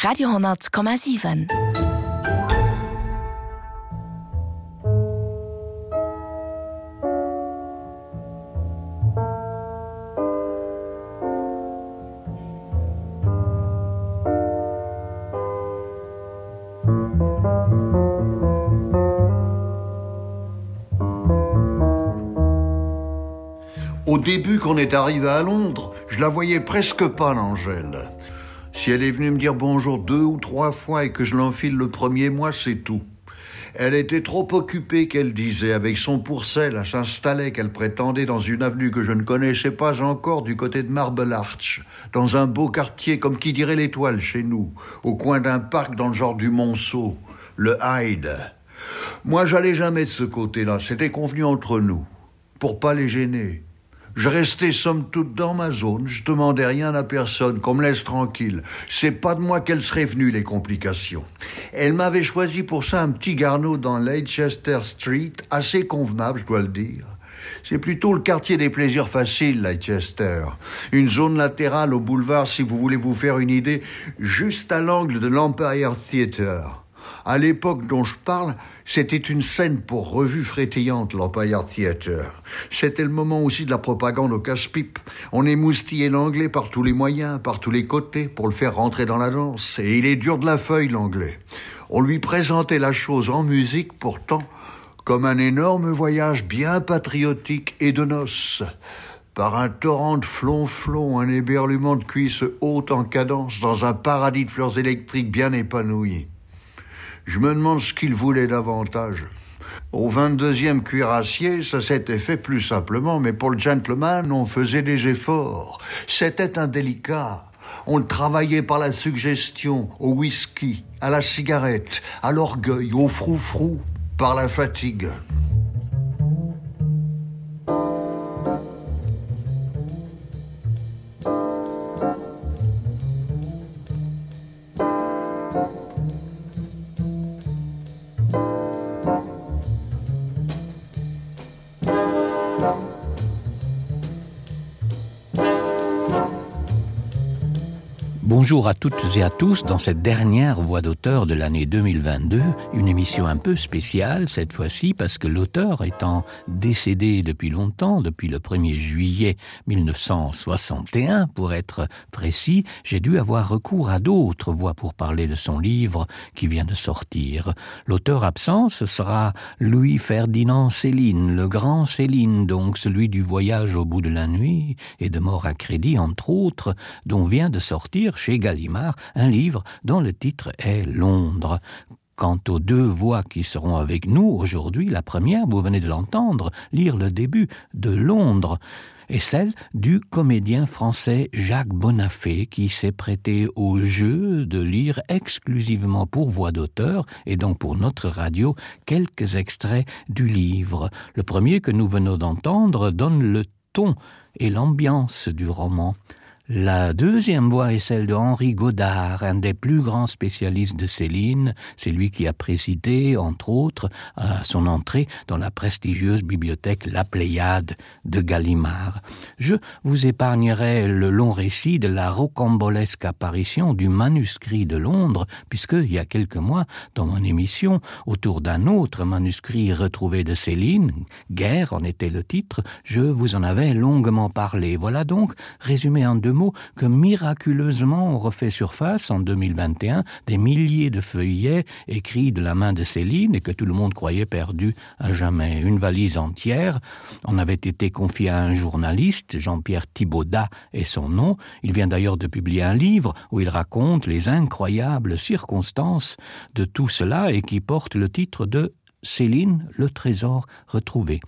Radio 100,7. Au début, quand on est arrivé à Londres, je la voyais presque pas, l'Angèle. Si elle est venue me dire bonjour 2 ou 3 fois et que je l'enfile le premier mois, c'est tout. Elle était trop occupée, qu'elle disait, avec son pourcel à s'installer, qu'elle prétendait dans une avenue que je ne connaissais pas encore, du côté de Marble Arch, dans un beau quartier, comme qui dirait l'Étoile chez nous, au coin d'un parc dans le genre du Monceau, le Hyde. Moi, j'allais jamais de ce côté-là, c'était convenu entre nous, pour pas les gêner. Je restais somme toute dans ma zone, je demandais rien à personne, qu'on me laisse tranquille. C'est pas de moi qu'elles seraient venues, les complications. Elle m'avait choisi pour ça un petit garnot dans Leicester Street, assez convenable, je dois le dire. C'est plutôt le quartier des plaisirs faciles, Leicester. Une zone latérale au boulevard, si vous voulez vous faire une idée, juste à l'angle de l'Empire Theatre. À l'époque dont je parle, c'était une scène pour revue frétillante, l'Empire Theatre. C'était le moment aussi de la propagande au casse-pipe. On émoustillait l'anglais par tous les moyens, par tous les côtés, pour le faire rentrer dans la danse. Et il est dur de la feuille, l'anglais. On lui présentait la chose en musique, pourtant, comme un énorme voyage bien patriotique et de noces. Par un torrent de flonflon, un éberluement de cuisses hautes en cadence, dans un paradis de fleurs électriques bien épanoui. Je me demande ce qu'il voulait davantage. Au 22e cuirassier, ça s'était fait plus simplement, mais pour le gentleman, on faisait des efforts. C'était indélicat. On le travaillait par la suggestion, au whisky, à la cigarette, à l'orgueil, au froufrou, par la fatigue. Bonjour à toutes et à tous dans cette dernière voix d'auteur de l'année 2022, une émission un peu spéciale cette fois-ci parce que l'auteur étant décédé depuis longtemps, depuis le 1er juillet 1961 pour être précis, j'ai dû avoir recours à d'autres voix pour parler de son livre qui vient de sortir. L'auteur absent, ce sera Louis-Ferdinand Céline, le grand Céline, donc celui du voyage au bout de la nuit et de Mort à crédit entre autres, dont vient de sortir chez Gallimard, un livre dont le titre est Londres. Quant aux 2 voix qui seront avec nous aujourd'hui, la première, vous venez de l'entendre, lire le début de Londres, et celle du comédien français Jacques Bonafé qui s'est prêté au jeu de lire exclusivement pour voix d'auteur et donc pour notre radio quelques extraits du livre. Le premier que nous venons d'entendre donne le ton et l'ambiance du roman. La deuxième voix est celle de Henri Godard, un des plus grands spécialistes de Céline. C'est lui qui a présidé, entre autres, à son entrée dans la prestigieuse bibliothèque La Pléiade de Gallimard. Je vous épargnerai le long récit de la rocambolesque apparition du manuscrit de Londres, puisque, il y a quelques mois, dans mon émission, autour d'un autre manuscrit retrouvé de Céline, Guerre en était le titre, je vous en avais longuement parlé. Voilà donc, résumé en 2 mots, que miraculeusement on refait surface en 2021, des milliers de feuillets écrits de la main de Céline et que tout le monde croyait perdus à jamais. Une valise entière en avait été confiée à un journaliste, Jean-Pierre Thibaudat est son nom. Il vient d'ailleurs de publier un livre où il raconte les incroyables circonstances de tout cela et qui porte le titre de Céline, le trésor retrouvé.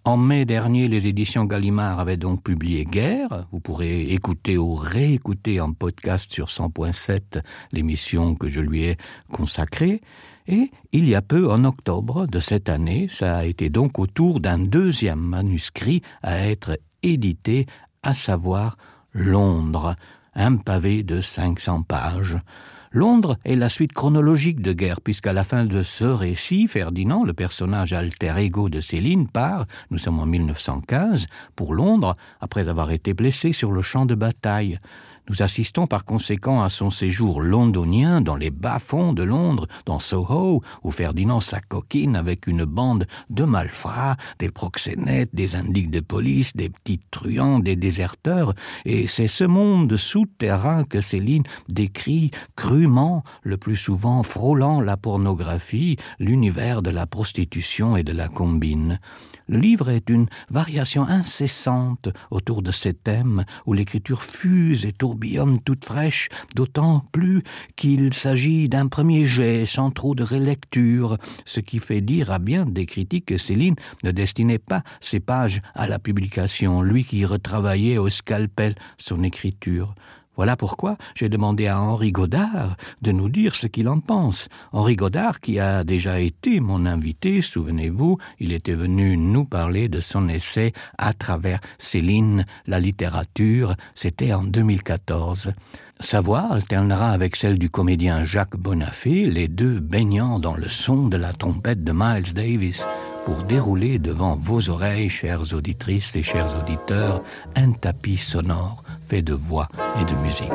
En mai dernier, les éditions Gallimard avaient donc publié Guerre. Vous pourrez écouter ou réécouter en podcast sur 100.7 l'émission que je lui ai consacrée. Et il y a peu, en octobre de cette année, ça a été donc au tour d'un 2e manuscrit à être édité, à savoir Londres, un pavé de 500 pages. Londres est la suite chronologique de Guerre, puisqu'à la fin de ce récit, Ferdinand, le personnage alter ego de Céline, part, nous sommes en 1915, pour Londres, après avoir été blessé sur le champ de bataille. Nous assistons par conséquent à son séjour londonien dans les bas-fonds de Londres, dans Soho, où Ferdinand s'acoquine avec une bande de malfrats, des proxénètes, des indiques de police, des petits truands, des déserteurs, et c'est ce monde souterrain que Céline décrit crûment, le plus souvent frôlant la pornographie, l'univers de la prostitution et de la combine. Le livre est une variation incessante autour de ces thèmes où l'écriture fuse et tourbillonne toute fraîche, d'autant plus qu'il s'agit d'un premier jet sans trop de relecture, ce qui fait dire à bien des critiques que Céline ne destinait pas ses pages à la publication, lui qui retravaillait au scalpel son écriture. Voilà pourquoi j'ai demandé à Henri Godard de nous dire ce qu'il en pense. Henri Godard, qui a déjà été mon invité, souvenez-vous, il était venu nous parler de son essai « À travers Céline, la littérature », c'était en 2014. Sa voix alternera avec celle du comédien Jacques Bonafé, les deux baignant dans le son de la trompette de Miles Davis, pour dérouler devant vos oreilles, chères auditrices et chers auditeurs, un tapis sonore fait de voix et de musique.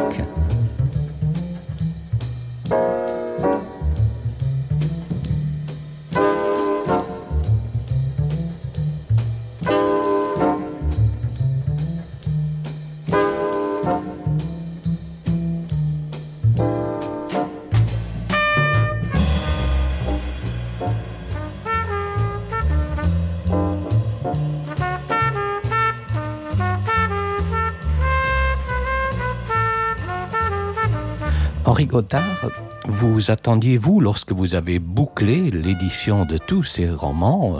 Henri Godard, vous attendiez-vous, lorsque vous avez bouclé l'édition de tous ces romans,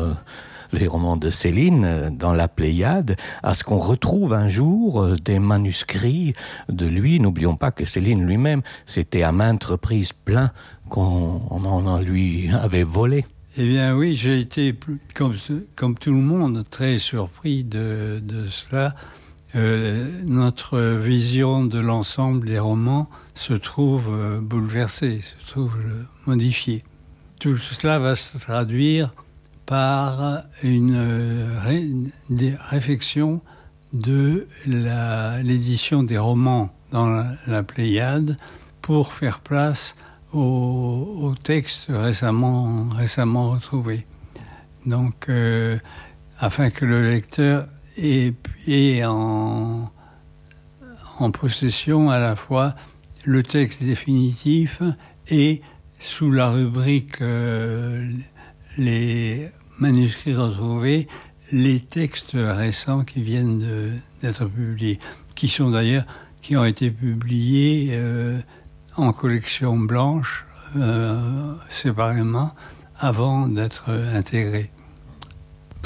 les romans de Céline dans la Pléiade, à ce qu'on retrouve un jour des manuscrits de lui? N'oublions pas que Céline lui-même s'était à maintes reprises plaint qu'on en lui avait volé. Eh bien oui, j'ai été, comme tout le monde, très surpris de cela. Notre vision de l'ensemble des romans se trouve bouleversée, se trouve modifiée. Tout cela va se traduire par une réflexion de l'édition des romans dans la Pléiade pour faire place aux textes récemment retrouvés. Donc, afin que le lecteur ait en possession à la fois le texte définitif et, sous la rubrique les manuscrits retrouvés, les textes récents qui viennent d'être publiés, qui ont été publiés en collection blanche, séparément, avant d'être intégrés.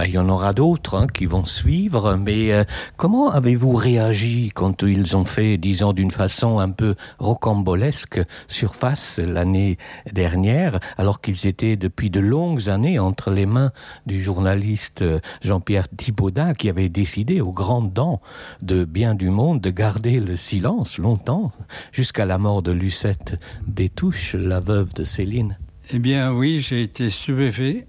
Il y en aura d'autres qui vont suivre, mais comment avez-vous réagi quand ils ont fait, disons, d'une façon un peu rocambolesque, surface l'année dernière, alors qu'ils étaient depuis de longues années entre les mains du journaliste Jean-Pierre Thibaudat, qui avait décidé aux grandes dents de Bien du Monde de garder le silence longtemps, jusqu'à la mort de Lucette Détouche, la veuve de Céline? Eh bien oui, j'ai été stupéfait.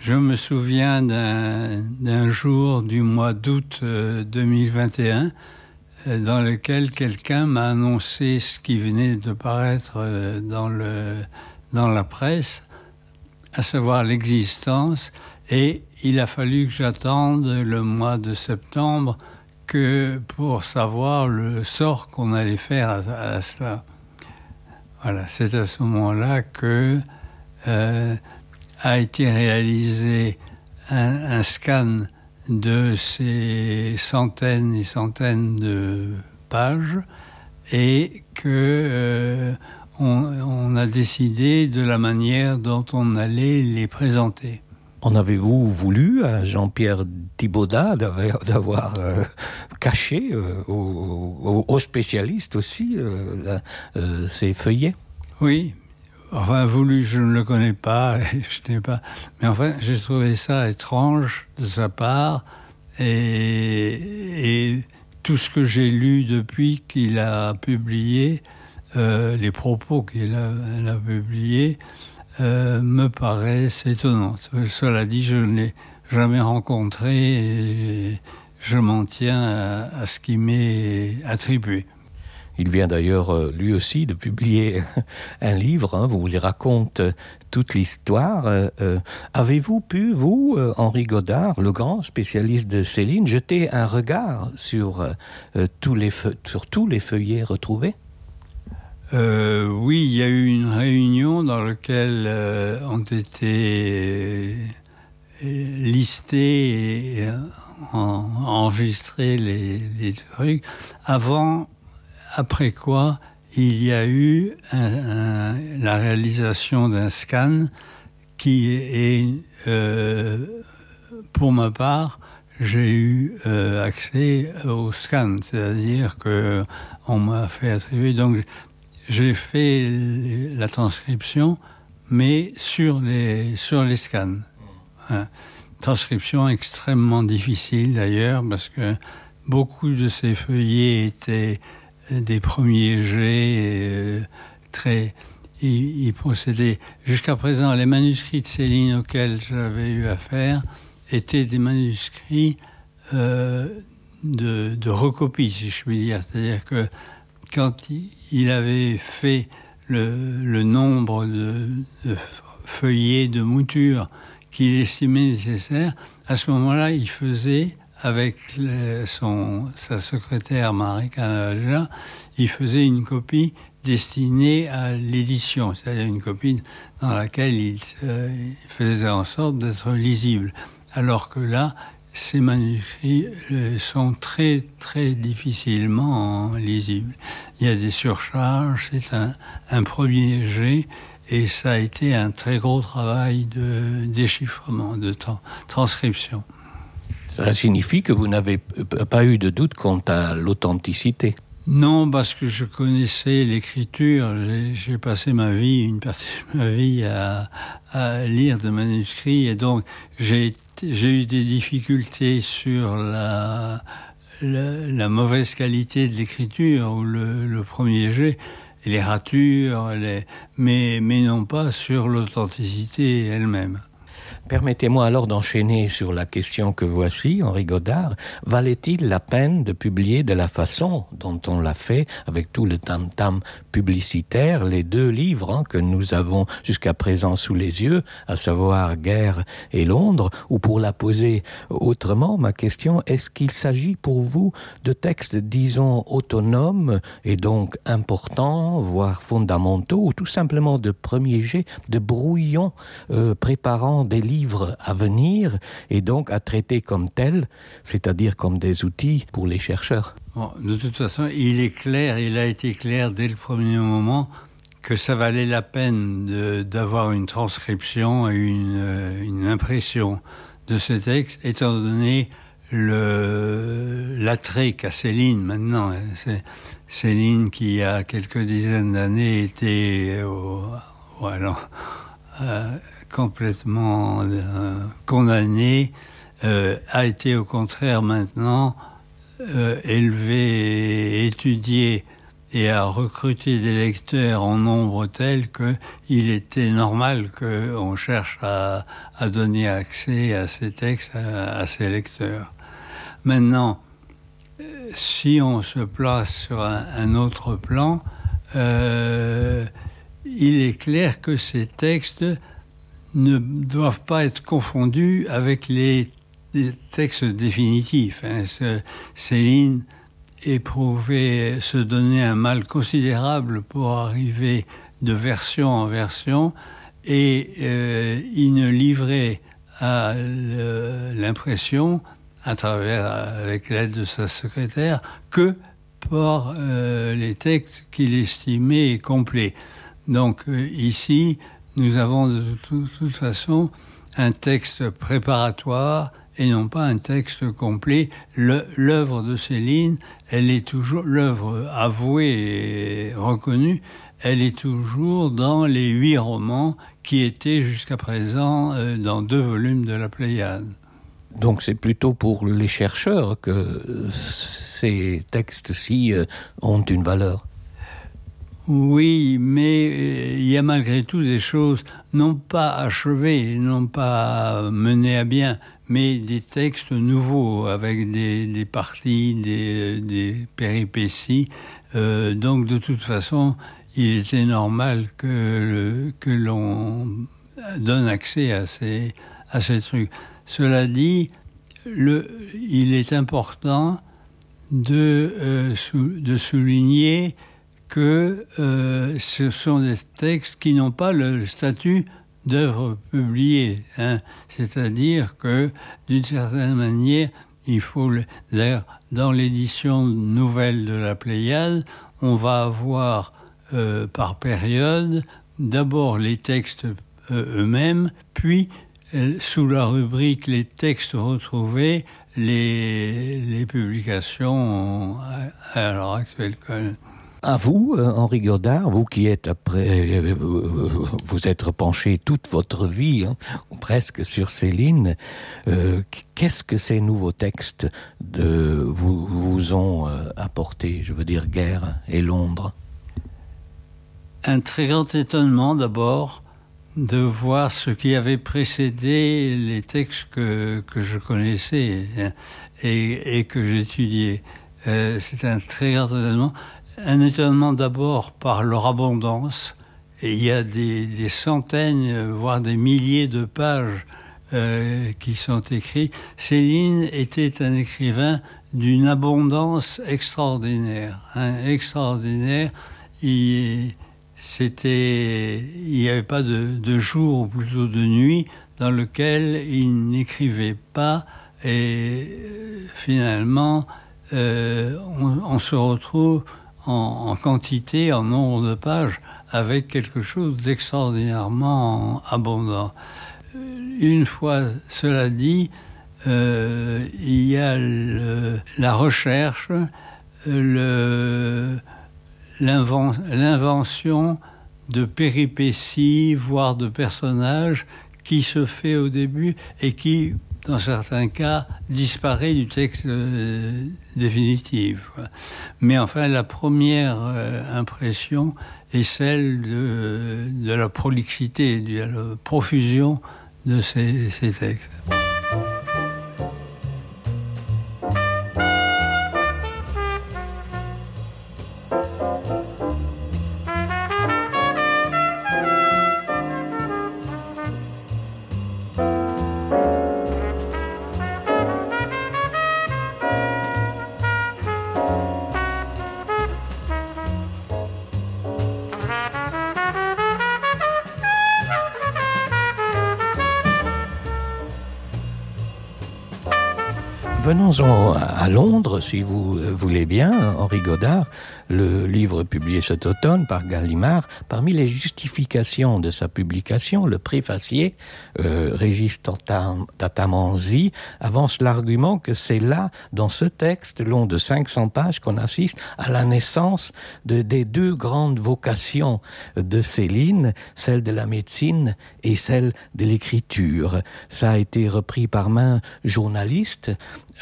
Je me souviens d'un jour du mois d'août 2021 dans lequel quelqu'un m'a annoncé ce qui venait de paraître dans la presse, à savoir l'existence, et il a fallu que j'attende le mois de septembre pour savoir le sort qu'on allait faire à cela. Voilà, c'est à ce moment-là que a été réalisé un scan de ces centaines et centaines de pages et que on a décidé de la manière dont on allait les présenter. En avez-vous voulu à Jean-Pierre Thibaudat d'avoir caché aux spécialistes aussi ces feuillets? Oui. Enfin, voulu, je ne le connais pas, je n'ai pas. Mais enfin, j'ai trouvé ça étrange de sa part, et tout ce que j'ai lu depuis qu'il a publié, les propos qu'il a publiés, me paraissent étonnants. Cela dit, je ne l'ai jamais rencontré et je m'en tiens à ce qui m'est attribué. Il vient d'ailleurs lui aussi de publier un livre, où il raconte toute l'histoire. Avez-vous pu, vous, Henri Godard, le grand spécialiste de Céline, jeter un regard sur tous les feuillets retrouvés? Oui, il y a eu une réunion dans laquelle ont été listés et enregistrés les trucs. Après quoi, il y a eu la réalisation d'un scan qui est, pour ma part, j'ai eu accès au scan, c'est-à-dire que on m'a fait attribuer. Donc, j'ai fait la transcription, mais sur les scans. Transcription extrêmement difficile d'ailleurs, parce que beaucoup de ces feuillets étaient des premiers jets, ils procédaient. Jusqu'à présent, les manuscrits de Céline auxquels j'avais eu affaire étaient des manuscrits de recopie, si je puis dire. C'est-à-dire que quand il avait fait le nombre de feuillets de mouture qu'il estimait nécessaire, à ce moment-là, il faisait, avec sa secrétaire Marie Canavaja, il faisait une copie destinée à l'édition, c'est-à-dire une copie dans laquelle il faisait en sorte d'être lisible. Alors que là, ces manuscrits sont très, très difficilement lisibles. Il y a des surcharges, c'est un premier jet, et ça a été un très gros travail de déchiffrement, de transcription. Cela signifie que vous n'avez pas eu de doute quant à l'authenticité? Non, parce que je connaissais l'écriture. J'ai passé une partie de ma vie à lire des manuscrits, et donc j'ai eu des difficultés sur la mauvaise qualité de l'écriture ou le premier jet, les ratures, mais non pas sur l'authenticité elle-même. Permettez-moi alors d'enchaîner sur la question que voici, Henri Godard. Valait-il la peine de publier de la façon dont on l'a fait, avec tout le tam-tam publicitaire, les 2 livres que nous avons jusqu'à présent sous les yeux, à savoir Guerre et Londres, ou pour la poser autrement, ma question, est-ce qu'il s'agit pour vous de textes, disons, autonomes et donc importants, voire fondamentaux, ou tout simplement de premiers jets, de brouillons préparant des livres à venir et donc à traiter comme tels, c'est-à-dire comme des outils pour les chercheurs? Bon, de toute façon, il a été clair dès le premier moment que ça valait la peine d'avoir une transcription et une impression de ce texte, étant donné l'attrait qu'a Céline maintenant. C'est Céline qui, il y a quelques dizaines d'années, était complètement condamné, a été au contraire maintenant élevé, étudié et a recruté des lecteurs en nombre tel qu'il était normal qu'on cherche à donner accès à ces textes à ces lecteurs. Maintenant, si on se place sur un autre plan, il est clair que ces textes ne doivent pas être confondus avec les textes définitifs. Céline éprouvait, se donnait un mal considérable pour arriver de version en version, et il ne livrait à l'impression, avec l'aide de sa secrétaire, que par les textes qu'il estimait complets. Donc ici, nous avons de toute façon un texte préparatoire et non pas un texte complet. L'œuvre de Céline, elle est toujours, l'œuvre avouée et reconnue, elle est toujours dans les 8 romans qui étaient jusqu'à présent dans 2 volumes de la Pléiade. Donc c'est plutôt pour les chercheurs que ces textes-ci ont une valeur. Oui, mais il y a malgré tout des choses non pas achevées, non pas menées à bien, mais des textes nouveaux avec des parties, des péripéties Donc de toute façon, il était normal que l'on donne accès à ces trucs. Cela dit, il est important de souligner que ce sont des textes qui n'ont pas le statut d'œuvre publiée, hein. C'est-à-dire que, d'une certaine manière, il faut... D'ailleurs, dans l'édition nouvelle de la Pléiade, on va avoir par période d'abord les textes eux-mêmes, puis sous la rubrique les textes retrouvés, les publications à l'heure actuelle. À vous, Henri Godard, vous qui êtes vous êtes penché toute votre vie, hein, ou presque sur Céline, qu'est-ce que ces nouveaux textes vous ont apporté, je veux dire Guerre et Londres? Un très grand étonnement d'abord de voir ce qui avait précédé les textes que je connaissais et que j'étudiais. C'est un très grand étonnement. Un étonnement d'abord par leur abondance. Et il y a des centaines, voire des milliers de pages qui sont écrites. Céline était un écrivain d'une abondance extraordinaire. Extraordinaire. Il n'y avait pas de jour, ou plutôt de nuit, dans lequel il n'écrivait pas. Et finalement, on se retrouve en quantité, en nombre de pages, avec quelque chose d'extraordinairement abondant. Une fois cela dit, il y a la recherche, l'invention de péripéties, voire de personnages, qui se fait au début et qui, dans certains cas, disparaît du texte définitif. Mais enfin, la première impression est celle de la prolixité, de la profusion de ces textes. Venons-en à Londres, si vous voulez bien, Henri Godard. Le livre publié cet automne par Gallimard, parmi les justifications de sa publication, le préfacier, Régis Tatamanzi, avance l'argument que c'est là, dans ce texte long de 500 pages, qu'on assiste à la naissance des deux grandes vocations de Céline, celle de la médecine et celle de l'écriture. Ça a été repris par main journaliste.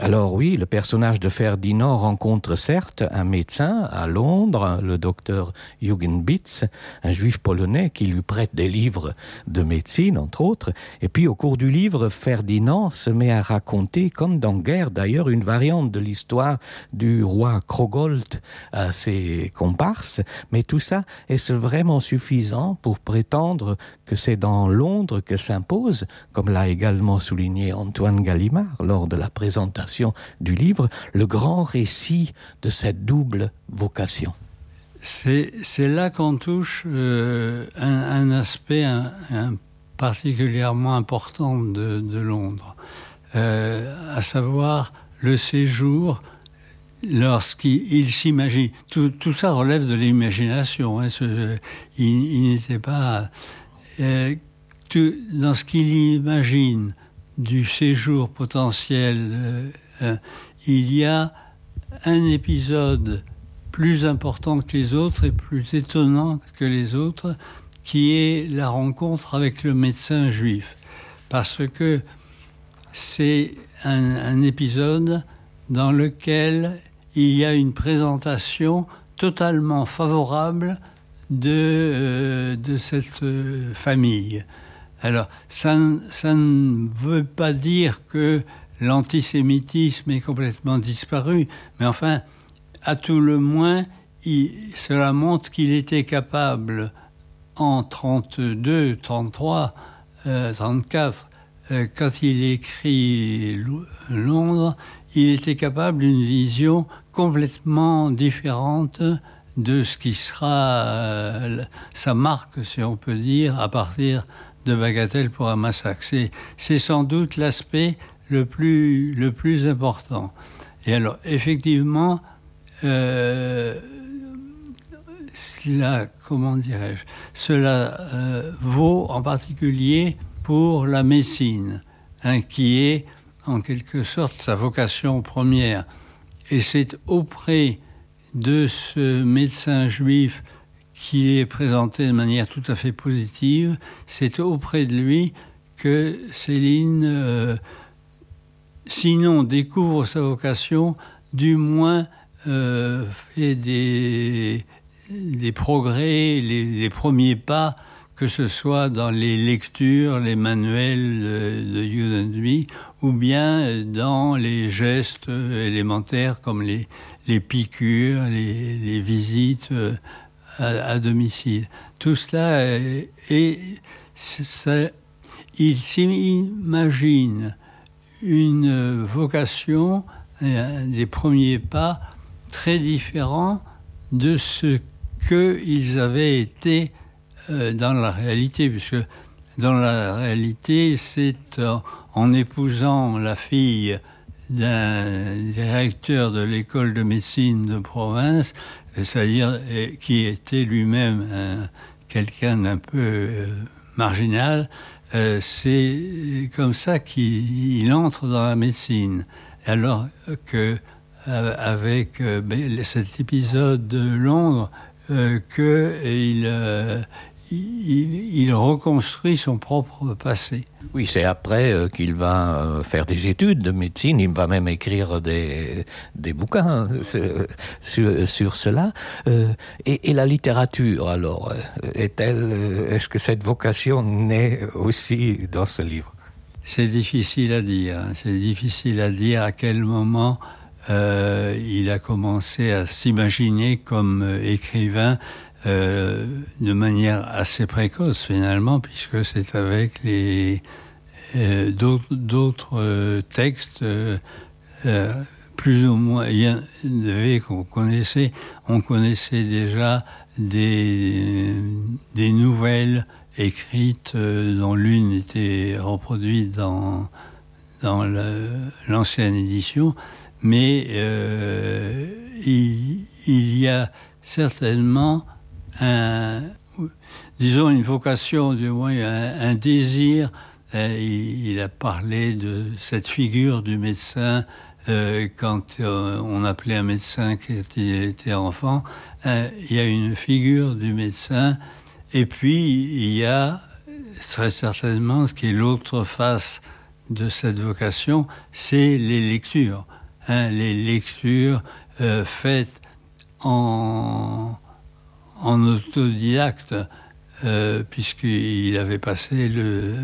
Alors oui, le personnage de Ferdinand rencontre certes un médecin à Londres, le docteur Eugen Bitz, un juif polonais qui lui prête des livres de médecine, entre autres. Et puis au cours du livre, Ferdinand se met à raconter, comme dans Guerre d'ailleurs, une variante de l'histoire du roi Krogold à ses comparses. Mais tout ça, est-ce vraiment suffisant pour prétendre que c'est dans Londres que s'impose, comme l'a également souligné Antoine Gallimard lors de la présentation du livre, le grand récit de cette double vocation? C'est là qu'on touche un aspect particulièrement important de Londres, à savoir le séjour lorsqu'il s'imagine. Tout ça relève de l'imagination. Hein, il n'était pas... dans ce qu'il imagine du séjour potentiel, il y a un épisode plus important que les autres et plus étonnant que les autres, qui est la rencontre avec le médecin juif. Parce que c'est un épisode dans lequel il y a une présentation totalement favorable de cette famille. Alors, ça ne veut pas dire que l'antisémitisme est complètement disparu, mais enfin, à tout le moins, cela montre qu'il était capable, en 32, 33, 34, quand il écrit Londres, il était capable d'une vision complètement différente de ce qui sera sa marque, si on peut dire, à partir de Bagatelle pour un massacre. C'est sans doute l'aspect le plus important. Et alors, effectivement, cela vaut en particulier pour la médecine, qui est en quelque sorte sa vocation première. Et c'est auprès de ce médecin juif qui est présenté de manière tout à fait positive, c'est auprès de lui que Céline, sinon découvre sa vocation, du moins fait des progrès, les premiers pas, que ce soit dans les lectures, les manuels de Judenby, ou bien dans les gestes élémentaires comme les piqûres, les visites à domicile. Tout cela il s'imagine une vocation, des premiers pas très différents de ce qu'ils avaient été dans la réalité, puisque dans la réalité, c'est en épousant la fille d'un directeur de l'école de médecine de province, c'est-à-dire qui était lui-même quelqu'un d'un peu marginal, c'est comme ça qu'il entre dans la médecine. Alors que avec cet épisode de Londres, il reconstruit son propre passé. Oui, c'est après qu'il va faire des études de médecine, il va même écrire des bouquins sur cela. Et la littérature, alors, est-ce que cette vocation naît aussi dans ce livre ? C'est difficile à dire. C'est difficile à dire à quel moment il a commencé à s'imaginer comme écrivain, de manière assez précoce finalement, puisque c'est avec d'autres textes plus ou moins qu'on connaissait. On connaissait déjà des nouvelles écrites dont l'une était reproduite dans l'ancienne édition, mais il y a certainement une vocation, du moins un désir. Il a parlé de cette figure du médecin quand on appelait un médecin quand il était enfant. Il y a une figure du médecin, et puis il y a très certainement ce qui est l'autre face de cette vocation, c'est les lectures. Les lectures faites en autodidacte, puisqu'il avait passé le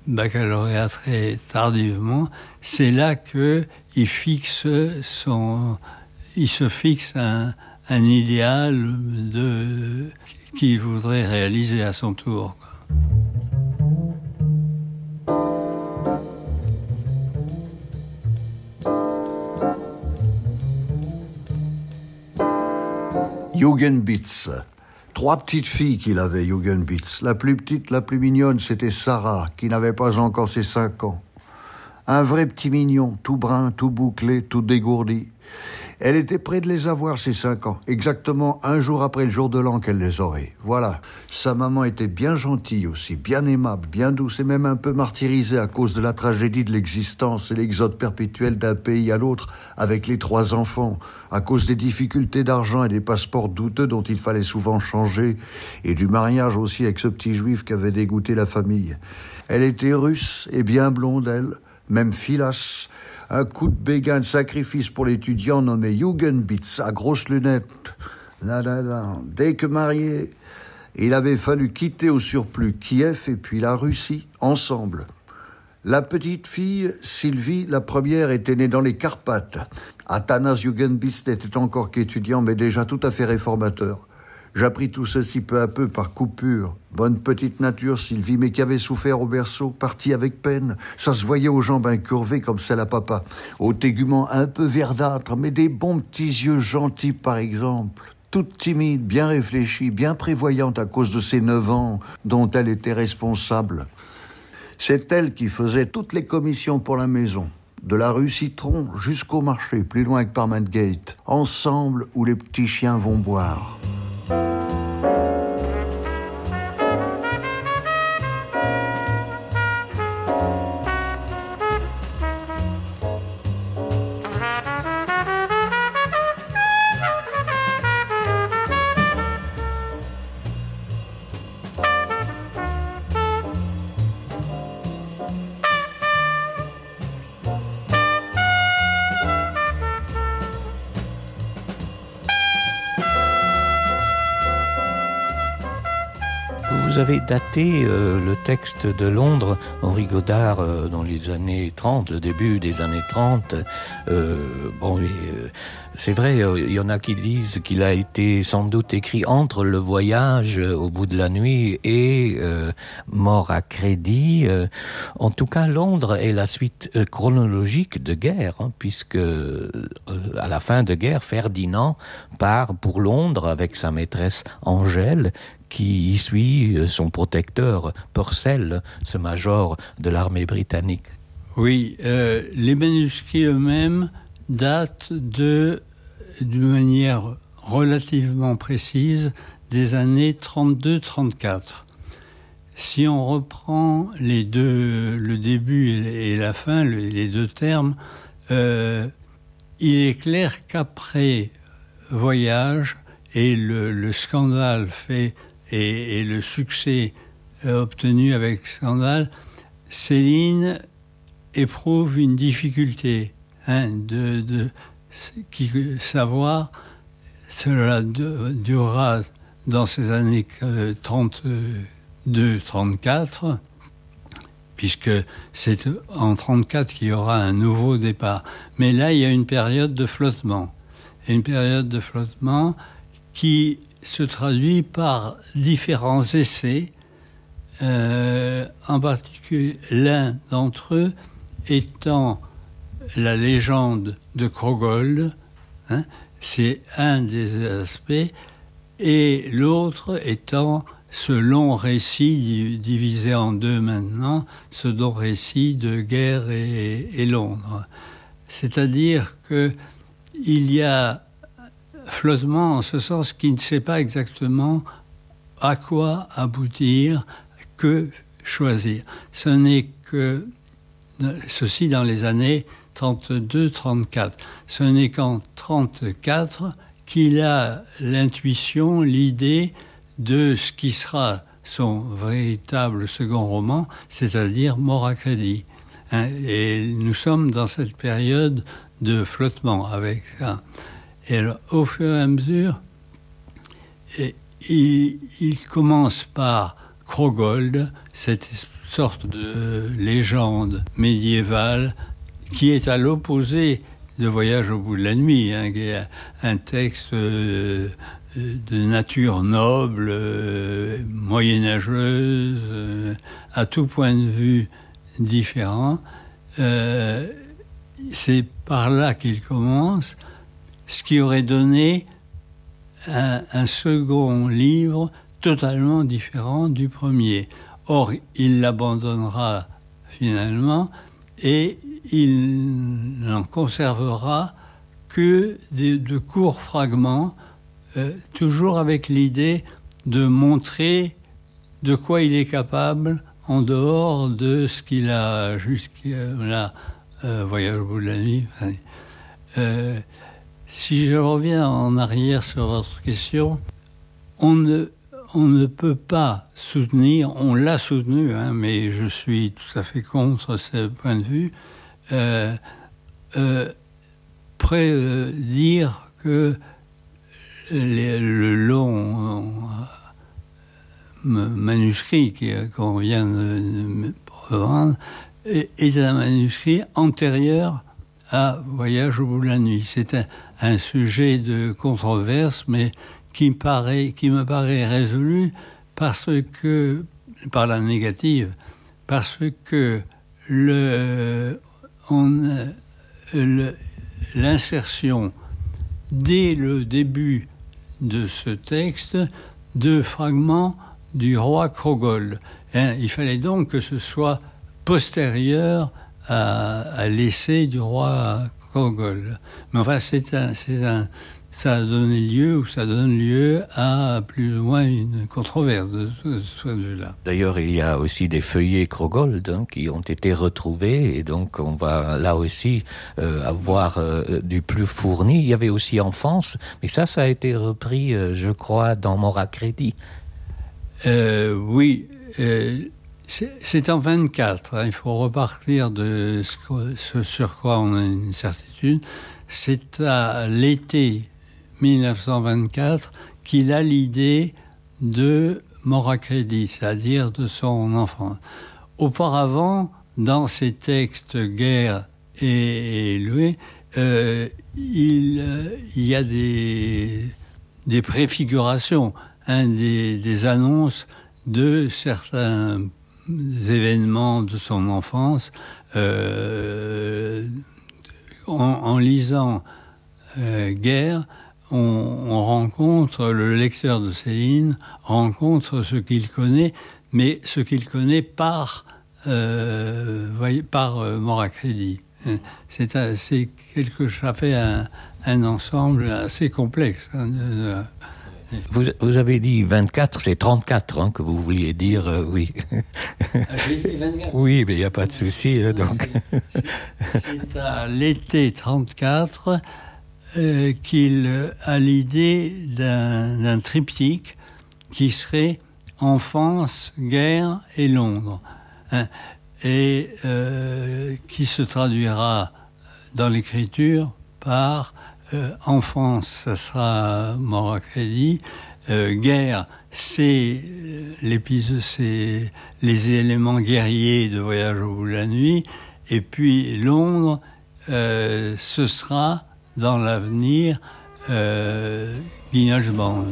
baccalauréat très tardivement. C'est là qu'il se fixe un idéal qu'il voudrait réaliser à son tour. Jugendbitz. 3 petites filles qu'il avait, Jugendbitz. La plus petite, la plus mignonne, c'était Sarah, qui n'avait pas encore ses 5 ans. Un vrai petit mignon, tout brun, tout bouclé, tout dégourdi. Elle était près de les avoir, ces 5 ans, exactement un jour après le jour de l'an qu'elle les aurait. Voilà. Sa maman était bien gentille aussi, bien aimable, bien douce et même un peu martyrisée à cause de la tragédie de l'existence et l'exode perpétuel d'un pays à l'autre avec les 3 enfants, à cause des difficultés d'argent et des passeports douteux dont il fallait souvent changer, et du mariage aussi avec ce petit juif qui avait dégoûté la famille. Elle était russe et bien blonde, elle, même filasse. Un coup de béguin de sacrifice pour l'étudiant nommé Jugendbitz, à grosses lunettes. Dès que marié, il avait fallu quitter au surplus Kiev et puis la Russie, ensemble. La petite fille, Sylvie, la première, était née dans les Carpates. Athanas Jugendbist était encore qu'étudiant, mais déjà tout à fait réformateur. J'appris tout ceci peu à peu par coupure. Bonne petite nature, Sylvie, mais qui avait souffert au berceau, partie avec peine. Ça se voyait aux jambes incurvées comme celle à papa. Au tégument un peu verdâtre, mais des bons petits yeux gentils, par exemple. Toute timide, bien réfléchie, bien prévoyante à cause de ses 9 ans, dont elle était responsable. C'est elle qui faisait toutes les commissions pour la maison, de la rue Citron jusqu'au marché, plus loin que Parliament Gate, ensemble où les petits chiens vont boire. Vous avez daté le texte de Londres, Henri Godard, dans les années 30, le début des années 30. C'est vrai, il y en a qui disent qu'il a été sans doute écrit entre Le Voyage au bout de la nuit et Mort à crédit. En tout cas, Londres est la suite chronologique de Guerre, puisque à la fin de Guerre, Ferdinand part pour Londres avec sa maîtresse Angèle, qui y suit son protecteur Purcell, ce major de l'armée britannique. Oui, les manuscrits eux-mêmes datent d'une manière relativement précise des années 32-34. Si on reprend le début et la fin, les deux termes, il est clair qu'après Voyage et le scandale fait et le succès obtenu avec Scandale, Céline éprouve une difficulté de savoir. Cela durera dans ces années 32-34, puisque c'est en 34 qu'il y aura un nouveau départ. Mais là, il y a une période de flottement. Et une période de flottement qui se traduit par différents essais, en particulier l'un d'entre eux étant la légende de Krogold, c'est un des aspects, et l'autre étant ce long récit divisé en deux maintenant, ce long récit de Guerre et Londres. C'est-à-dire qu'il y a flottement en ce sens qui ne sait pas exactement à quoi aboutir, que choisir. Ce n'est que ceci dans les années 32-34. Ce n'est qu'en 34 qu'il a l'intuition, l'idée de ce qui sera son véritable second roman, c'est-à-dire Mort à crédit. Et nous sommes dans cette période de flottement avec ça. Et alors, au fur et à mesure, il commence par Krogold, cette sorte de légende médiévale qui est à l'opposé de Voyage au bout de la nuit, qui est un texte de nature noble, moyenâgeuse, à tout point de vue différent. C'est par là qu'il commence, ce qui aurait donné un second livre totalement différent du premier. Or, il l'abandonnera finalement et il n'en conservera que de courts fragments, toujours avec l'idée de montrer de quoi il est capable en dehors de ce qu'il a jusqu'à Voyage au bout de la nuit. Si je reviens en arrière sur votre question, on ne peut pas soutenir, on l'a soutenu, mais je suis tout à fait contre ce point de vue, dire que le long manuscrit qu'on vient de revendre est un manuscrit antérieur à Voyage au bout de la nuit. C'est un sujet de controverse, mais qui me paraît résolu par la négative, parce que l'insertion dès le début de ce texte de fragments du roi Krogol. Il fallait donc que ce soit postérieur à l'essai du roi Krogol. Mais enfin, ça a donné lieu, ou ça donne lieu à plus ou moins une controverse de ce point de vue-là. D'ailleurs, il y a aussi des feuillets Krogold qui ont été retrouvés, et donc on va là aussi avoir du plus fourni. Il y avait aussi Enfance, mais ça a été repris, je crois, dans Moracrédit. Oui, c'est en 24. Il faut repartir de ce sur quoi on a une certitude. C'est à l'été 1924 qu'il a l'idée de Moracrédit, c'est-à-dire de son enfance. Auparavant, dans ses textes Guerre et Loué, il y a des préfigurations, des annonces de certains événements de son enfance. En lisant Guerre, on rencontre, le lecteur de Céline rencontre ce qu'il connaît, mais ce qu'il connaît par Moracrédit. Ça fait un ensemble assez complexe. Vous avez dit 24, c'est 34 que vous vouliez dire, oui. J'ai dit 24. Oui, mais il n'y a pas de souci. Donc. C'est à l'été 34 qu'il a l'idée d'un triptyque qui serait Enfance, Guerre et Londres, et qui se traduira dans l'écriture par Enfance, ça sera Moracrédit, Guerre, c'est l'épisode, c'est les éléments guerriers de Voyage au bout de la nuit, et puis Londres, ce sera dans l'avenir Guignol's Band.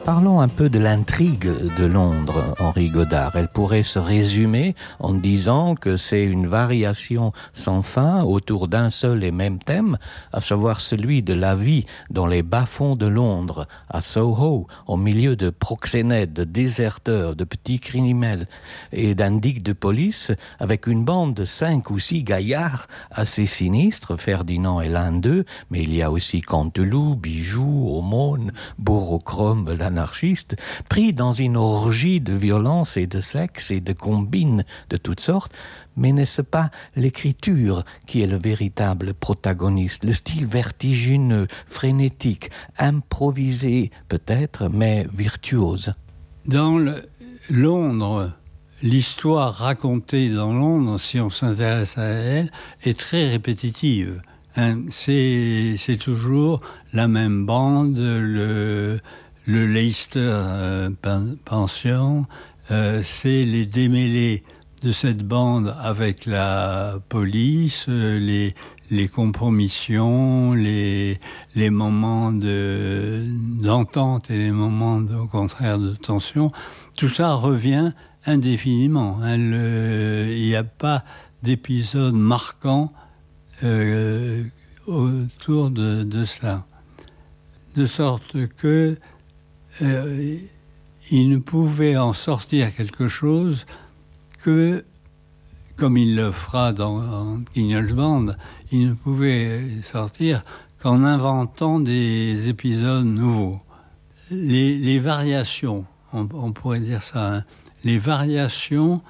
Parlons un peu de l'intrigue de Londres, Henri Godard. Elle pourrait se résumer en disant que c'est une variation sans fin autour d'un seul et même thème, à savoir celui de la vie dans les bas-fonds de Londres, à Soho, au milieu de proxénètes, de déserteurs, de petits criminels et d'indiques de police, avec une bande de 5 ou 6 gaillards assez sinistres. Ferdinand est l'un d'eux, mais il y a aussi Canteloup, Bijoux, Aumône, Borochrome, l'anarchiste, pris dans une orgie de violence et de sexe et de combines de toutes sortes. Mais n'est-ce pas l'écriture qui est le véritable protagoniste, le style vertigineux, frénétique, improvisé peut-être, mais virtuose? Dans Londres, l'histoire racontée dans Londres, si on s'intéresse à elle, est très répétitive. C'est toujours la même bande, le Leicester Pension, c'est les démêlés de cette bande avec la police, les compromissions, les moments d'entente et les moments au contraire de tension. Tout ça revient indéfiniment. Il n'y a pas d'épisode marquant autour de cela. De sorte que il ne pouvait en sortir quelque chose que, comme il le fera dans Guignol's Band, il ne pouvait sortir qu'en inventant des épisodes nouveaux. Les variations, on pourrait dire ça, les variations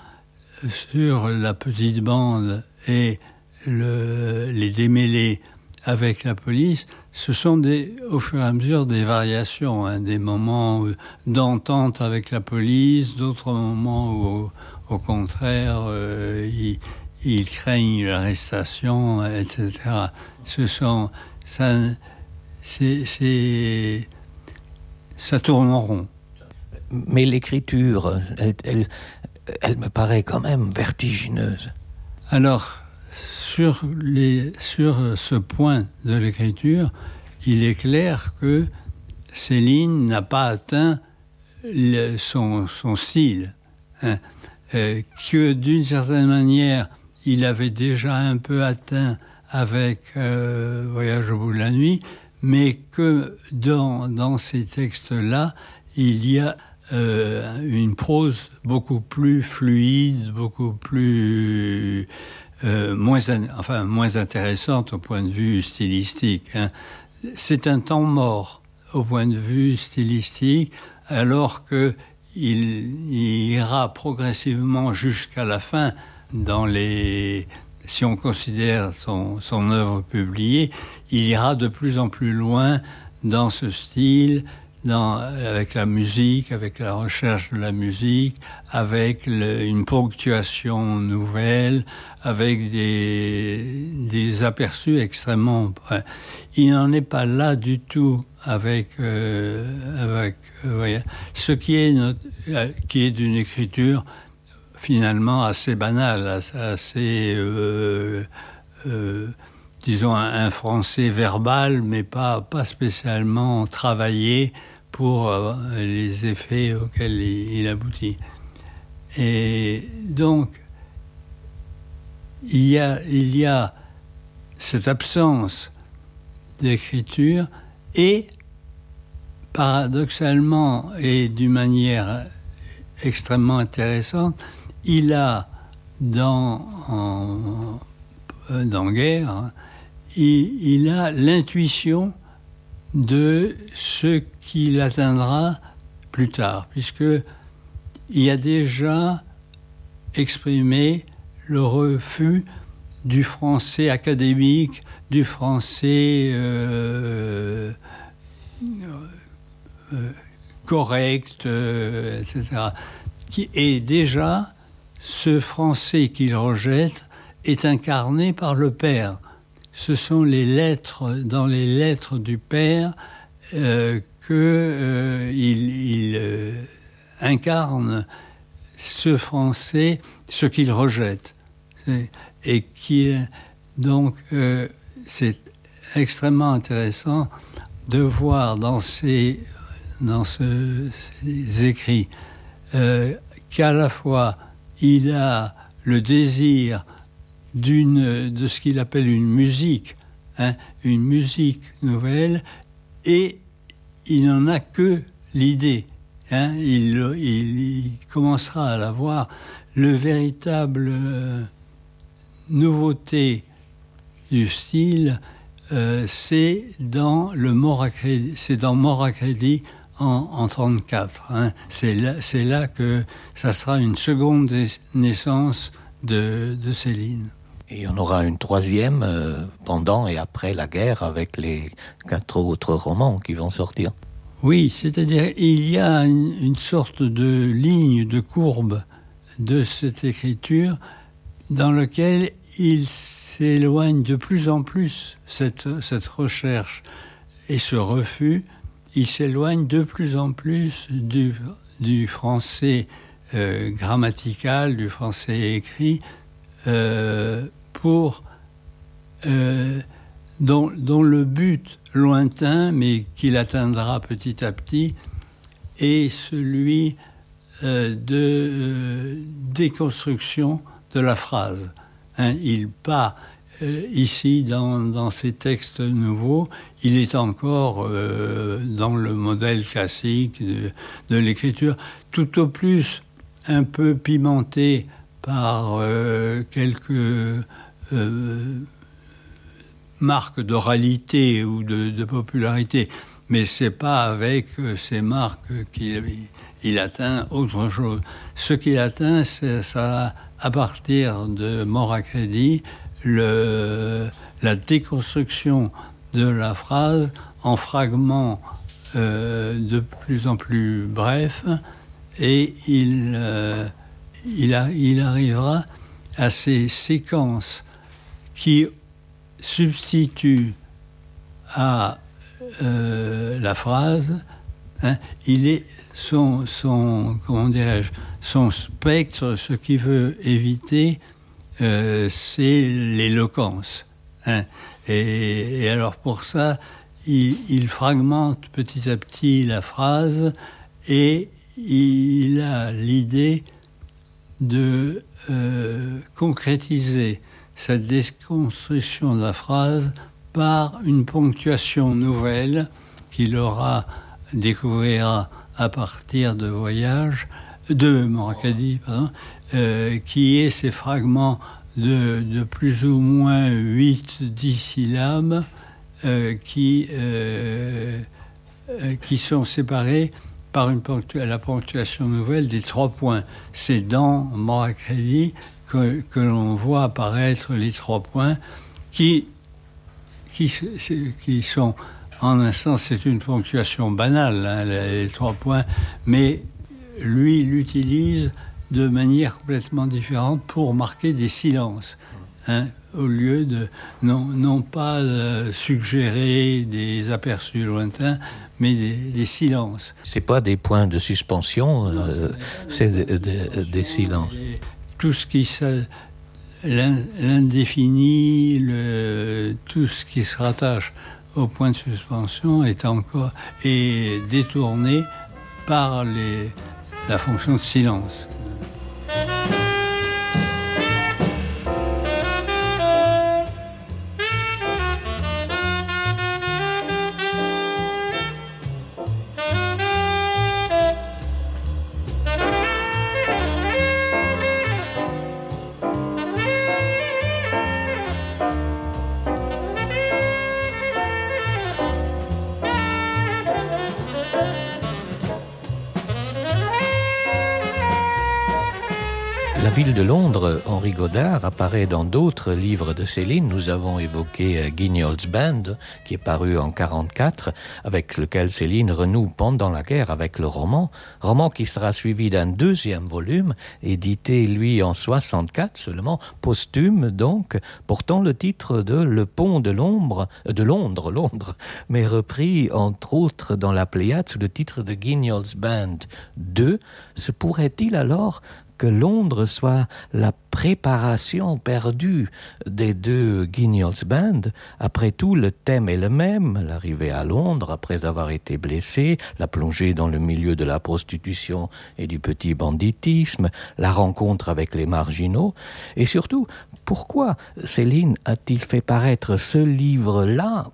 sur la petite bande et les démêlés avec la police, ce sont au fur et à mesure des variations, hein, des moments d'entente avec la police, d'autres moments où, au contraire, ils craignent l'arrestation, etc. Ça tourne en rond. Mais l'écriture, elle me paraît quand même vertigineuse. Alors, sur ce point de l'écriture, il est clair que Céline n'a pas atteint son style, hein, que d'une certaine manière, il avait déjà un peu atteint avec Voyage au bout de la nuit, mais que dans ces textes-là, il y a une prose beaucoup plus fluide, beaucoup plus moins intéressante au point de vue stylistique, hein. C'est un temps mort au point de vue stylistique, alors que il ira progressivement jusqu'à la fin si on considère son œuvre publiée, il ira de plus en plus loin dans ce style, avec la musique, avec la recherche de la musique, avec une ponctuation nouvelle, avec des aperçus extrêmement... Il n'en est pas là du tout avec ce qui est d'une écriture finalement assez banale, assez... disons un français verbal, mais pas spécialement travaillé pour les effets auxquels il aboutit. Et donc, il y a cette absence d'écriture et, paradoxalement et d'une manière extrêmement intéressante, il a dans Guerre, il a l'intuition de ce qu'il atteindra plus tard, puisqu'il a déjà exprimé le refus du français académique, du français correct, etc. Et déjà, ce français qu'il rejette est incarné par le père. Ce sont dans les lettres du père qu'il incarne ce français, ce qu'il rejette. Et donc, c'est extrêmement intéressant de voir dans ces écrits qu'à la fois il a le désir de ce qu'il appelle une musique nouvelle, et il n'en a que l'idée. Il commencera à la voir. Le véritable nouveauté du style, c'est dans Mort à crédit en 1934. C'est là que ça sera une seconde naissance de Céline. Et il y en aura une troisième pendant et après la guerre avec les 4 autres romans qui vont sortir. Oui, c'est-à-dire il y a une sorte de ligne, de courbe de cette écriture dans laquelle il s'éloigne de plus en plus, cette recherche et ce refus, il s'éloigne de plus en plus du français grammatical, du français écrit, dont le but lointain, mais qu'il atteindra petit à petit, est celui de déconstruction de la phrase. Il part ici dans ces textes nouveaux, il est encore dans le modèle classique de l'écriture, tout au plus un peu pimenté par quelques marques d'oralité ou de popularité, mais c'est pas avec ces marques qu'il atteint autre chose. Ce qu'il atteint, c'est ça, à partir de Mort à crédit, la déconstruction de la phrase en fragments de plus en plus brefs, et il arrivera à ces séquences qui substituent à la phrase, comment dirais-je, son spectre, ce qu'il veut éviter, c'est l'éloquence. Et alors pour ça, il fragmente petit à petit la phrase, et il a l'idée de concrétiser cette déconstruction de la phrase par une ponctuation nouvelle qu'il découvrira à partir de Moracadi, qui est ces fragments de plus ou moins 8-10 syllabes qui sont séparés par la ponctuation nouvelle des 3 points. C'est dans Moracadi que l'on voit apparaître les 3 points qui sont, en un sens, c'est une ponctuation banale, les 3 points, mais lui l'utilise de manière complètement différente pour marquer des silences, au lieu de non pas suggérer des aperçus lointains, mais des silences. C'est pas des points de suspension, c'est des silences. Tout ce qui l'indéfini, tout ce qui se rattache au point de suspension est détourné par la fonction de silence. La ville de Londres, Henri Godard, apparaît dans d'autres livres de Céline. Nous avons évoqué Guignol's Band, qui est paru en 1944, avec lequel Céline renoue pendant la guerre avec le roman qui sera suivi d'un 2e volume, édité lui en 1964 seulement, posthume donc, portant le titre de Le Pont de Londres, mais repris entre autres dans la Pléiade sous le titre de Guignol's Band 2. Se pourrait-il alors que Londres soit la préparation perdue des 2 Guignol's Band? Après tout, le thème est le même, l'arrivée à Londres après avoir été blessé, la plongée dans le milieu de la prostitution et du petit banditisme, la rencontre avec les marginaux, et surtout, pourquoi Céline a-t-il fait paraître ce livre-là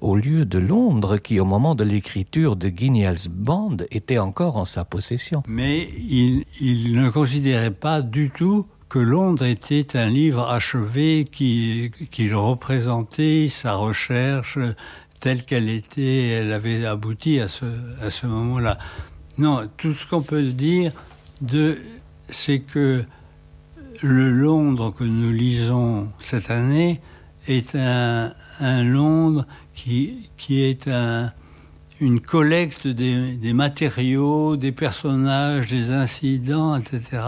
au lieu de Londres, qui, au moment de l'écriture de Guignol's Band, était encore en sa possession? Mais il ne considérait pas du tout que Londres était un livre achevé qu'il représentait sa recherche telle qu'elle était, elle avait abouti à ce moment-là. Non, tout ce qu'on peut dire, c'est que le Londres que nous lisons cette année est un Londres qui est une collecte des matériaux, des personnages, des incidents, etc.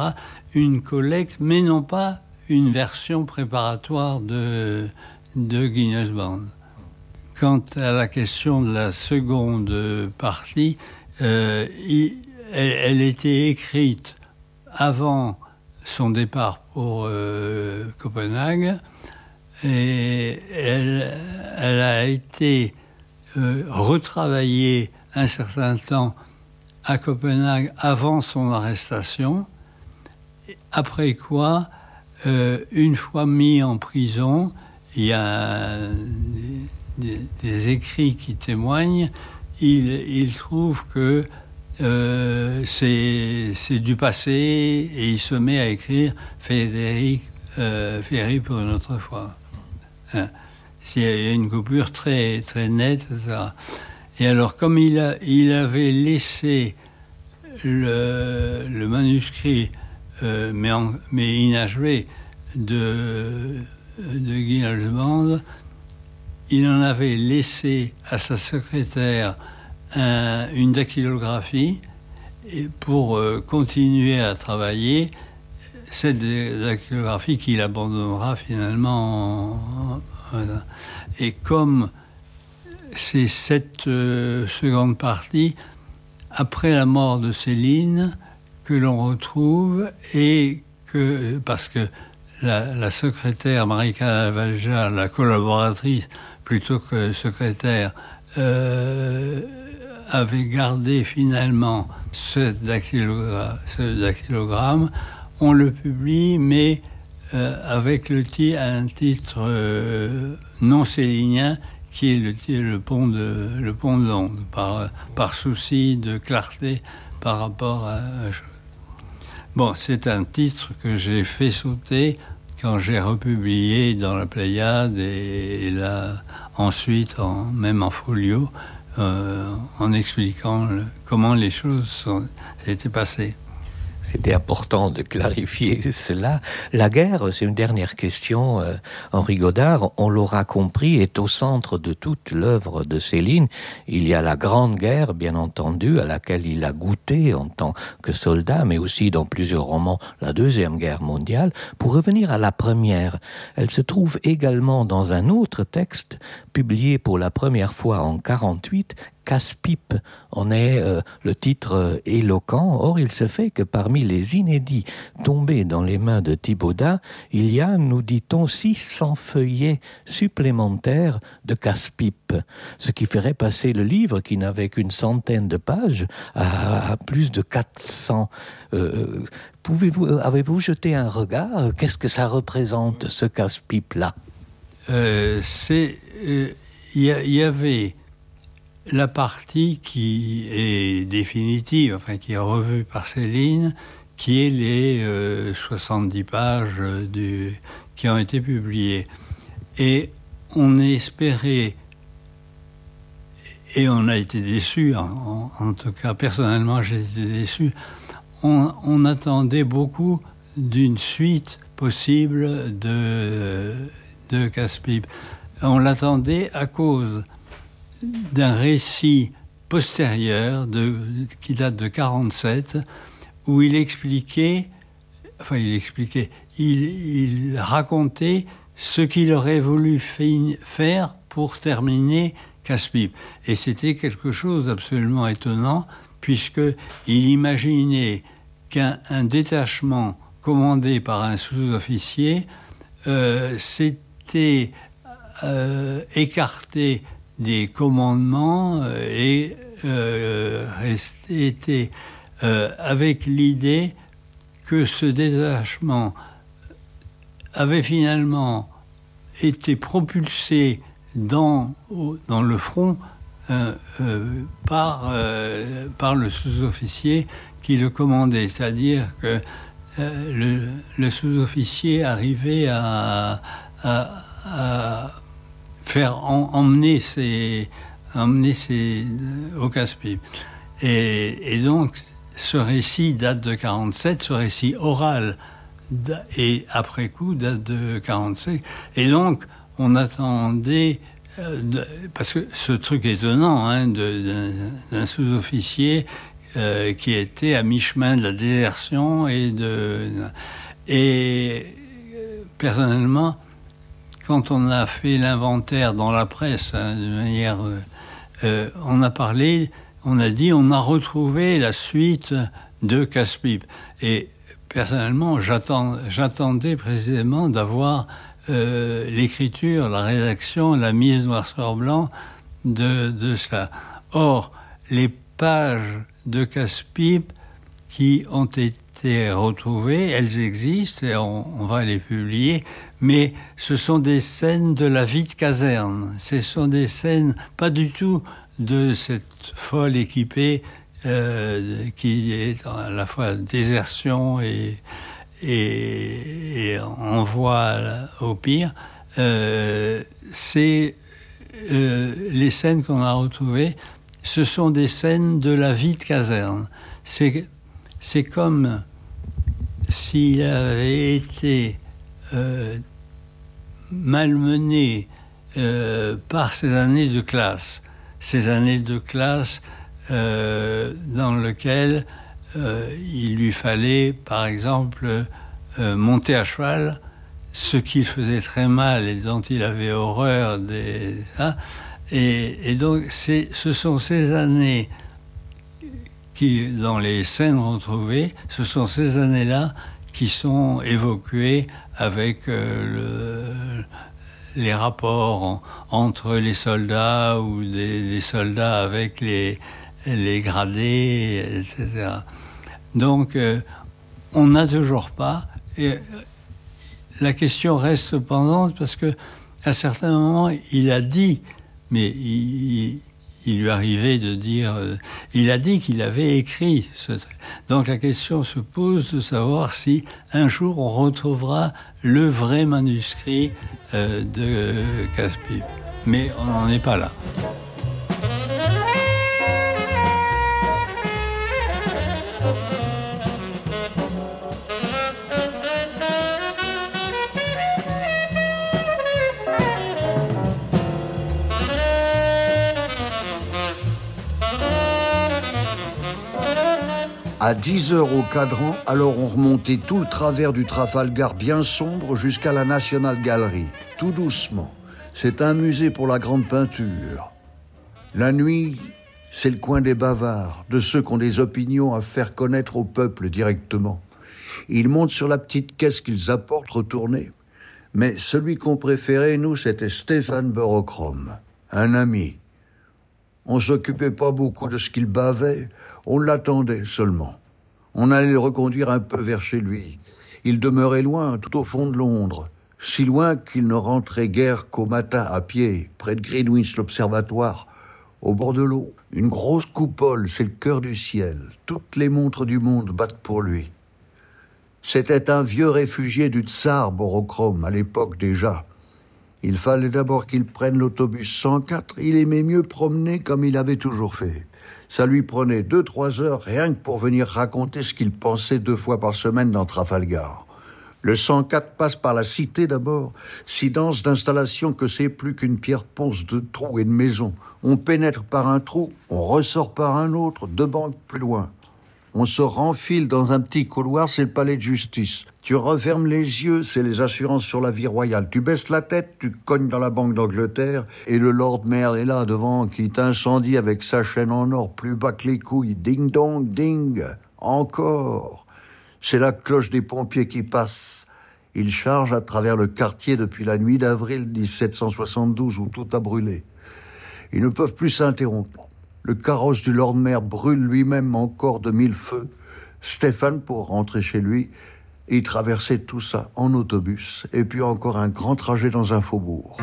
Une collecte, mais non pas une version préparatoire de Guignol's Band. Quant à la question de la seconde partie, elle était écrite avant son départ pour Copenhague, et elle a été retravaillée un certain temps à Copenhague avant son arrestation, après quoi, une fois mis en prison, il y a des écrits qui témoignent, il trouve que c'est du passé, et il se met à écrire Ferry pour une autre fois. Il y a une coupure très, très nette, etc. Et alors, comme il avait laissé le manuscrit, mais inachevé, de Guy Halsband, il en avait laissé à sa secrétaire une dactylographie pour continuer à travailler, cette dactylographie qu'il abandonnera finalement. Et comme c'est cette seconde partie, après la mort de Céline, que l'on retrouve, et que, parce que la secrétaire Marika Valja, la collaboratrice plutôt que secrétaire, avait gardé finalement ce dactylogramme, on le publie, mais avec un titre non célinien, qui est le pont de l'onde, par souci de clarté par rapport à la chose. Bon, c'est un titre que j'ai fait sauter quand j'ai republié dans la Pléiade et là, ensuite, même en folio, en expliquant comment les choses étaient passées. C'était important de clarifier cela. La guerre, c'est une dernière question. Henri Godard, on l'aura compris, est au centre de toute l'œuvre de Céline. Il y a la Grande Guerre, bien entendu, à laquelle il a goûté en tant que soldat, mais aussi dans plusieurs romans, la Deuxième Guerre mondiale. Pour revenir à la première, elle se trouve également dans un autre texte, publié pour la première fois en 1948, Casse-pipe en est le titre éloquent. Or, il se fait que parmi les inédits tombés dans les mains de Thibaudat, il y a, nous dit-on, 600 feuillets supplémentaires de Casse-pipe, ce qui ferait passer le livre, qui n'avait qu'une centaine de pages, à plus de 400. Avez-vous jeté un regard? Qu'est-ce que ça représente, ce Casse-pipe-là? Il y avait la partie qui est définitive, enfin qui est revue par Céline, qui est les 70 pages qui ont été publiées. Et on espérait, et on a été déçus, en tout cas personnellement j'ai été déçu, on attendait beaucoup d'une suite possible de Casse-pipe. On l'attendait à cause d'un récit postérieur qui date de 1947, où il racontait ce qu'il aurait voulu faire pour terminer Casse-pipe. Et c'était quelque chose d'absolument étonnant, puisqu'il imaginait qu'un détachement commandé par un sous-officier s'était écarté des commandements et était avec l'idée que ce détachement avait finalement été propulsé dans le front par le sous-officier qui le commandait, c'est-à-dire que le sous-officier arrivait à faire emmener au Casse-pipe. Et donc, ce récit date de 1947, ce récit oral, et après coup, date de 1945. Et donc, on attendait, parce que ce truc étonnant, d'un sous-officier qui était à mi-chemin de la désertion et personnellement, quand on a fait l'inventaire dans la presse, de manière, on a dit, on a retrouvé la suite de Casse-pipe. Et personnellement, j'attendais précisément d'avoir l'écriture, la rédaction, la mise noir sur blanc de cela. Or, les pages de Casse-pipe qui ont été retrouvées, elles existent et on va les publier, mais ce sont des scènes de la vie de caserne. Ce sont des scènes pas du tout de cette folle équipée qui est à la fois désertion et envoi au pire. C'est les scènes qu'on a retrouvées, ce sont des scènes de la vie de caserne. C'est comme s'il avait été malmené par ces années de classe. Ces années de classe dans lesquelles il lui fallait, par exemple, monter à cheval, ce qu'il faisait très mal et dont il avait horreur. Et donc, ce sont ces années qui, dans les scènes retrouvées, ce sont ces années-là qui sont évoquées avec les rapports entre les soldats ou des soldats avec les gradés, etc. Donc, on n'a toujours pas... Et la question reste pendante parce que à certains moments, il a dit, mais il lui arrivait de dire... il a dit qu'il avait écrit ce... Donc la question se pose de savoir si un jour on retrouvera le vrai manuscrit de Casse-Pipe. Mais on n'en est pas là. À 10 heures au cadran, alors on remontait tout le travers du Trafalgar bien sombre jusqu'à la National Gallery, tout doucement. C'est un musée pour la grande peinture. La nuit, c'est le coin des bavards, de ceux qui ont des opinions à faire connaître au peuple directement. Ils montent sur la petite caisse qu'ils apportent retournée. Mais celui qu'on préférait, nous, c'était Stéphane Burochrome, un ami. On s'occupait pas beaucoup de ce qu'il bavait, on l'attendait seulement. On allait le reconduire un peu vers chez lui. Il demeurait loin, tout au fond de Londres, si loin qu'il ne rentrait guère qu'au matin à pied, près de Greenwich, l'observatoire, au bord de l'eau. Une grosse coupole, c'est le cœur du ciel. Toutes les montres du monde battent pour lui. C'était un vieux réfugié du tsar Burochrome, à l'époque déjà. Il fallait d'abord qu'il prenne l'autobus 104. Il aimait mieux promener comme il avait toujours fait. Ça lui prenait 2-3 heures rien que pour venir raconter ce qu'il pensait 2 fois par semaine dans Trafalgar. Le 104 passe par la cité d'abord, si dense d'installations que c'est plus qu'une pierre ponce de trous et de maisons. On pénètre par un trou, on ressort par un autre, 2 banques plus loin. On se renfile dans un petit couloir, c'est le palais de justice. Tu refermes les yeux, c'est les assurances sur la vie royale. Tu baisses la tête, tu cognes dans la Banque d'Angleterre, et le Lord Mayor est là devant, qui t'incendie avec sa chaîne en or plus bas que les couilles. Ding dong, ding, encore. C'est la cloche des pompiers qui passe. Ils chargent à travers le quartier depuis la nuit d'avril 1772 où tout a brûlé. Ils ne peuvent plus s'interrompre. Le carrosse du Lord Mayor brûle lui-même encore de 1000 feux. Stéphane, pour rentrer chez lui, il traversait tout ça en autobus, et puis encore un grand trajet dans un faubourg.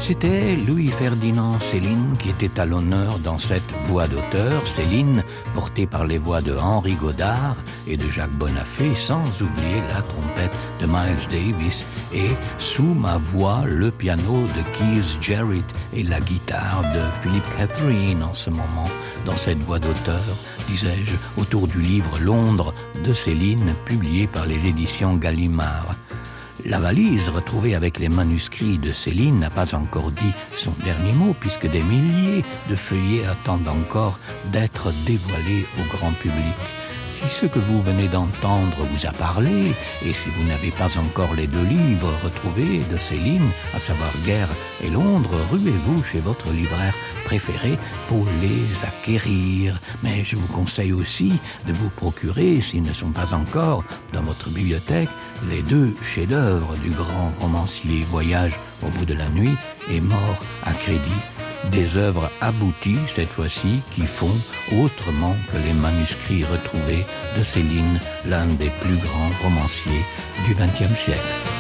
C'était Louis-Ferdinand Céline qui était à l'honneur dans cette voix d'auteur, Céline portée par les voix de Henri Godard et de Jacques Bonafé, sans oublier la trompette de Miles Davis et sous ma voix le piano de Keith Jarrett et la guitare de Philip Catherine en ce moment dans cette voix d'auteur, disais-je, autour du livre Londres de Céline publié par les éditions Gallimard. La valise retrouvée avec les manuscrits de Céline n'a pas encore dit son dernier mot puisque des milliers de feuillets attendent encore d'être dévoilés au grand public. Si ce que vous venez d'entendre vous a parlé et si vous n'avez pas encore les 2 livres retrouvés de Céline, à savoir Guerre et Londres, ruez-vous chez votre libraire préféré pour les acquérir. Mais je vous conseille aussi de vous procurer, s'ils ne sont pas encore dans votre bibliothèque, les 2 chefs-d'œuvre du grand romancier Voyage au bout de la nuit et Mort à crédit. Des œuvres abouties, cette fois-ci, qui font autrement que les manuscrits retrouvés de Céline, l'un des plus grands romanciers du XXe siècle.